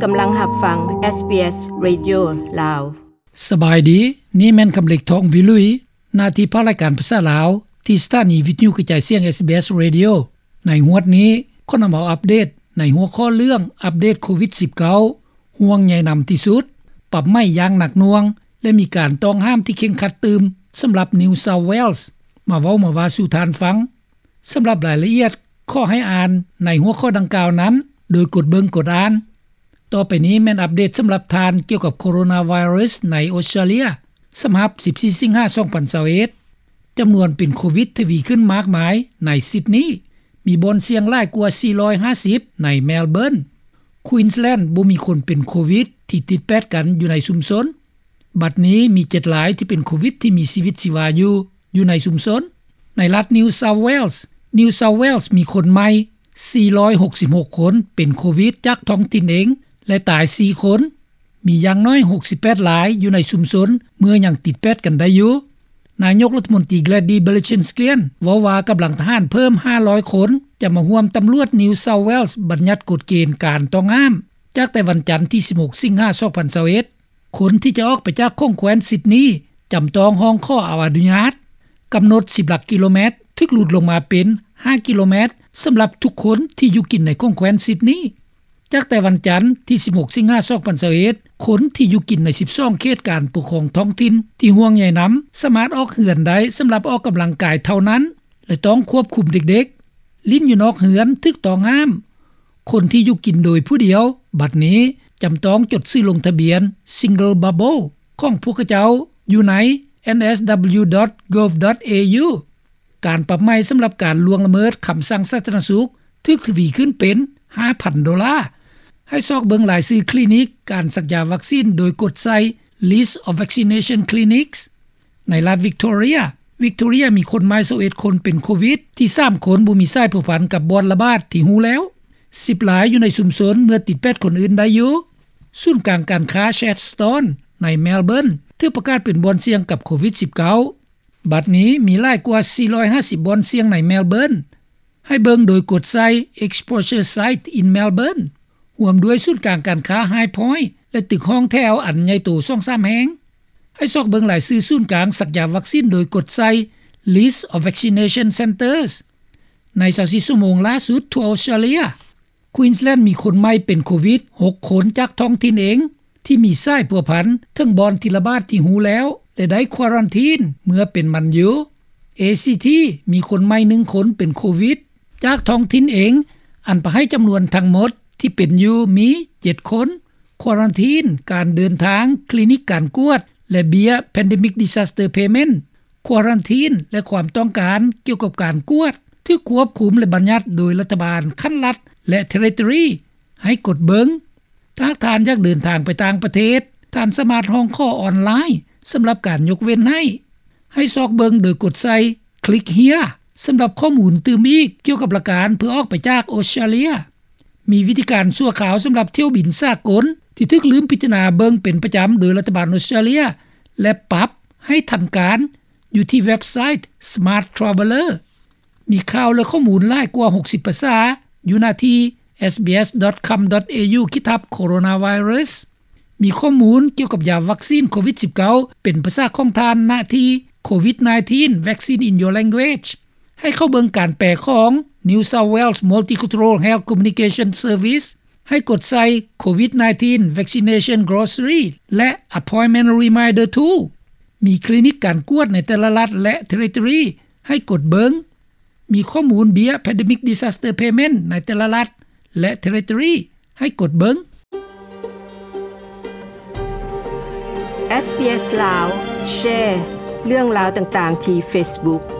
ກຳລັງຮັບຟັງ ເອສບີເອສ ເຣດິໂອ ລາວ. ສະບາຍດີ, ນີ້ແມ່ນຄຳເລັກ ທອງວິລຸຍ, ໜ້າທີ່ພາກລາຍການພາສາລາວ ທີ່ສະຖານີວິທະຍຸກະຈາຍສຽງ ເອສບີເອສ ເຣດິໂອ. ໃນງວດນີ້ ຂໍນຳເອົາອັບເດດໃນຫົວຂໍ້ເລື່ອງອັບເດດໂຄວິດສິບເກົ້າ ຫ່ວງໃຍນຳທີ່ສຸດ, ປັບໃໝຢ່າງໜັກໜ່ວງ ແລະ ມີການຕ້ອງຫ້າມທີ່ເຄັ່ງຄັດຕື່ມສຳລັບ New South Wales ມາເວົ້າມາວ່າສູ່ທ່ານຟັງ. ສຳລັບລາຍລະອຽດ ຂໍໃຫ້ອ່ານໃນຫົວຂໍ້ດັ່ງກ່າວນັ້ນ ໂດຍກົດເບິ່ງກົດອ່ານ. ຕໍ່ໄປນີ້ແມ່ນອັບເດດສຳລັບທ່ານກ່ຽວກັບໂຄໂຣນາໄວຣັສໃນອົດສະຕຣາເລຍ ສຳລັບສິບສີ່ສິງຫາ ສອງພັນຊາວເອັດ. ຈຳນວນເປັນໂຄວິດທະວີຂຶ້ນມາກມາຍໃນຊິດນີ, ມີບ່ອນສ່ຽງຫຼາຍກວ່າສີ່ຮ້ອຍຫ້າສິບໃນແມລເບີນ. ຄວີນສແລນບໍ່ມີຄົນເປັນໂຄວິດທີ່ຕິດແປດກັນຢູ່ໃນຊຸມຊົນ. ບັດນີ້ມີເຈັດລາຍທີ່ເປັນໂຄວິດທີ່ມີຊີວິດຊີວາຢູ່ ຢູ່ໃນຊຸມຊົນ. ໃນລັດ New South Wales, New South Wales ມີຄົນໃໝ່ສີ່ຮ້ອຍຫົກສິບຫົກຄົນເປັນໂຄວິດຈາກທ້ອງຖິ່ນເອງ ແລະ ຕາຍສີ່ຄົນ. ມີຢ່າງໜ້ອຍຫົກສິບແປດລາຍຢູ່ໃນຊຸມຊົນເມື່ອຍັງຕິດແປດກັນໄດ້ຢູ່. ນາຍົກລັດຖະມົນຕີ Gladys Berejiklian ເວົ້າວ່າກຳລັງທະຫານເພີ່ມຫ້າຮ້ອຍຄົນ ຈະມາຮ່ວມຕຳຫຼວດ New South Wales ບັນຍັດກົດເກນການຕ້ອງຫ້າມ ຈາກແຕ່ວັນຈັນທີສິບຫົກ ສິງຫາ ສອງພັນຊາວເອັດ. ຄົນທີ່ຈະອອກໄປຈາກຂົງແຄວ້ນຊິດນີ ຈຳຕ້ອງຮ້ອງຂໍເອົາອະນຸຍາດ. ກຳນົດສິບຫຼັກກິໂລແມັດ ຖືກຫຼຸດລົງມາເປັນຫ້າກິໂລແມັດ ສຳລັບທຸກຄົນທີ່ຢູ່ກິນໃນຂົງແຄວ້ນຊິດນີ. ຈາກແຕ່ວັນຈັນທີສິບຫົກ ສິງຫາ ສອງພັນຊາວເອັດ, ຄົນທີ່ຢູ່ກິນໃນສິບສອງເຂດການປົກຄອງທ້ອງຖິ່ນທີ່ຫ່ວງໃຍນຳ ສາມາດອອກເຮືອນໄດ້ສຳລັບອອກກຳລັງກາຍເທົ່ານັ້ນ ແລະ ຕ້ອງຄວບຄຸມເດັກໆ. ຫຼິ້ນຢູ່ນອກເຮືອນຖືກຕ້ອງຫ້າມ. ຄົນທີ່ຢູ່ກິນໂດຍຜູ້ດຽວ ບັດນີ້ຈຳຕ້ອງຈົດຊື່ລົງທະບຽນ Single Bubble ຂອງພວກເຂົາເຈົ້າຢູ່ໃນ NSW.gov.au. ການປັບໃໝສຳລັບການລ່ວງລະເມີດຄຳສັ່ງສາທາລະນະສຸກ ຖືກທະວີຂຶ້ນເປັນຫ້າພັນໂດລາ. ໃຫ້ຊອກເບິ່ງລາຍຊື່ຄລີນິກການສັກຢາວັກຊີນ ໂດຍກົດໃສ່ List of Vaccination Clinics. ໃນລັດ Victoria, Victoria ມີຄົນໃໝ່ຊາວເອັດຄົນເປັນໂຄວິດ, ທີ່ສາມຄົນບໍ່ມີສາຍພົວພັນກັບບ່ອນລະບາດທີ່ຮູ້ແລ້ວ. ສິບລາຍຢູ່ໃນຊຸມຊົນເມື່ອຕິດແປດຄົນອື່ນໄດ້ຢູ່. ສູນກາງການຄ້າ Chadstone ໃນ Melbourne ຖືກປະກາດເປັນບ່ອນສ່ຽງກັບໂຄວິດສິບເກົ້າ. ບັດນີ້ມີຫຼາຍກວ່າສີ່ຮ້ອຍຫ້າສິບບ່ອນສ່ຽງໃນ Melbourne. ໃຫ້ເບິ່ງໂດຍກົດໃສ່ Exposure Site in Melbourne ຮ່ວມດ້ວຍສູນກາງການຄ້າ High Point ແລະ ຕຶກຫ້ອງແຖວອັນໃຫຍ່ໂຕສອງສາມແຫ່ງ. ໃຫ້ຊອກເບິ່ງລາຍຊື່ສູນກາງສັກຢາວັກຊີນໂດຍກົດໃສ່ List of Vaccination Centres ໃນຊາວສີ່ຊົ່ວໂມງຫຼ້າສຸດທົ່ວອົດສະຕຣາເລຍ. Queensland ມີຄົນໃໝ່ເປັນໂຄວິດຫົກຄົນຈາກທ້ອງຖິ່ນເອງ ທີ່ມີສາຍພົວພັນເຖິງບ່ອນທີ່ລະບາດທີ່ຮູ້ແລ້ວ ແລະ ໄດ້ຄວາຣັນທີນເມື່ອເປັນໝັນຢູ່. ACT ມີຄົນໃໝ່ໜຶ່ງຄົນເປັນໂຄວິດຈາກທ້ອງຖິ່ນເອງ ອັນປະໃຫ້ຈຳນວນທັງໝົດທີ່ເປັນຢູ່ມີເຈັດຄົນ. ຄວາຣັນທີນ, ການເດີນທາງ, ຄລີນິກການກວດ ແລະ ເບ້ຍ Pandemic Disaster Payment. ຄວາຣັນທີນ ແລະ ຄວາມຕ້ອງການກ່ຽວກັບການກວດ ຖືກຄວບຄຸມ ແລະ ບັນຍັດໂດຍລັດຖະບານຂັ້ນລັດ ແລະ Territory. ໃຫ້ກົດເບິ່ງ. ຖ້າທ່ານຢາກເດີນທາງໄປຕ່າງປະເທດ, ທ່ານສາມາດຮ້ອງຂໍອອນລາຍສຳລັບການຍົກເວັ້ນໃຫ້. ໃຫ້ຊອກເບິ່ງໂດຍກົດໃສ່ Click Here ສຳລັບຂໍ້ມູນຕື່ມອີກກ່ຽວກັບຫຼັກການເພື່ອອອກໄປຈາກອົດສະຕຣາເລຍ. ມີວິທີການຊົ່ວຄາວສຳລັບຖ້ຽວບິນສາກົນ ທີ່ຖືກລືມພິຈາລະນາເບິ່ງເປັນປະຈຳໂດຍລັດຖະບານອົດສະຕຣາເລຍ ແລະ ປັບໃຫ້ທັນການ ຢູ່ທີ່ເວັບໄຊ Smart Traveller. ມີຂ່າວ ແລະ ຂໍ້ມູນຫຼາຍກວ່າຫົກສິບພາສາ ຢູ່ໜ້າທີ່ SBS.com.au ຂີດທັບ Coronavirus. ມີຂໍ້ມູນກ່ຽວກັບຢາວັກຊີນໂຄວິດສິບເກົ້າ ເປັນພາສາຂອງທ່ານ ໜ້າທີ່ COVID nineteen Vaccine in Your Language. ໃຫ້ເຂົ້າເບິ່ງການແປຂອງ New South Wales Multicultural Health Communication Service. ໃຫ້ກົດໃສ່ COVID nineteen Vaccination Glossary ແລະ Appointment Reminder Tool. ມີຄລີນິກການກວດໃນແຕ່ລະລັດ ແລະ Territory. ໃຫ້ກົດເບິ່ງ. ມີຂໍ້ມູນເບ້ຍ Pandemic Disaster Payment ໃນແຕ່ລະລັດ ແລະ Territory. ໃຫ້ກົດເບິ່ງ. SBS ລາວ ແຊເລື່ອງລາວຕ່າງໆທີ່ Facebook.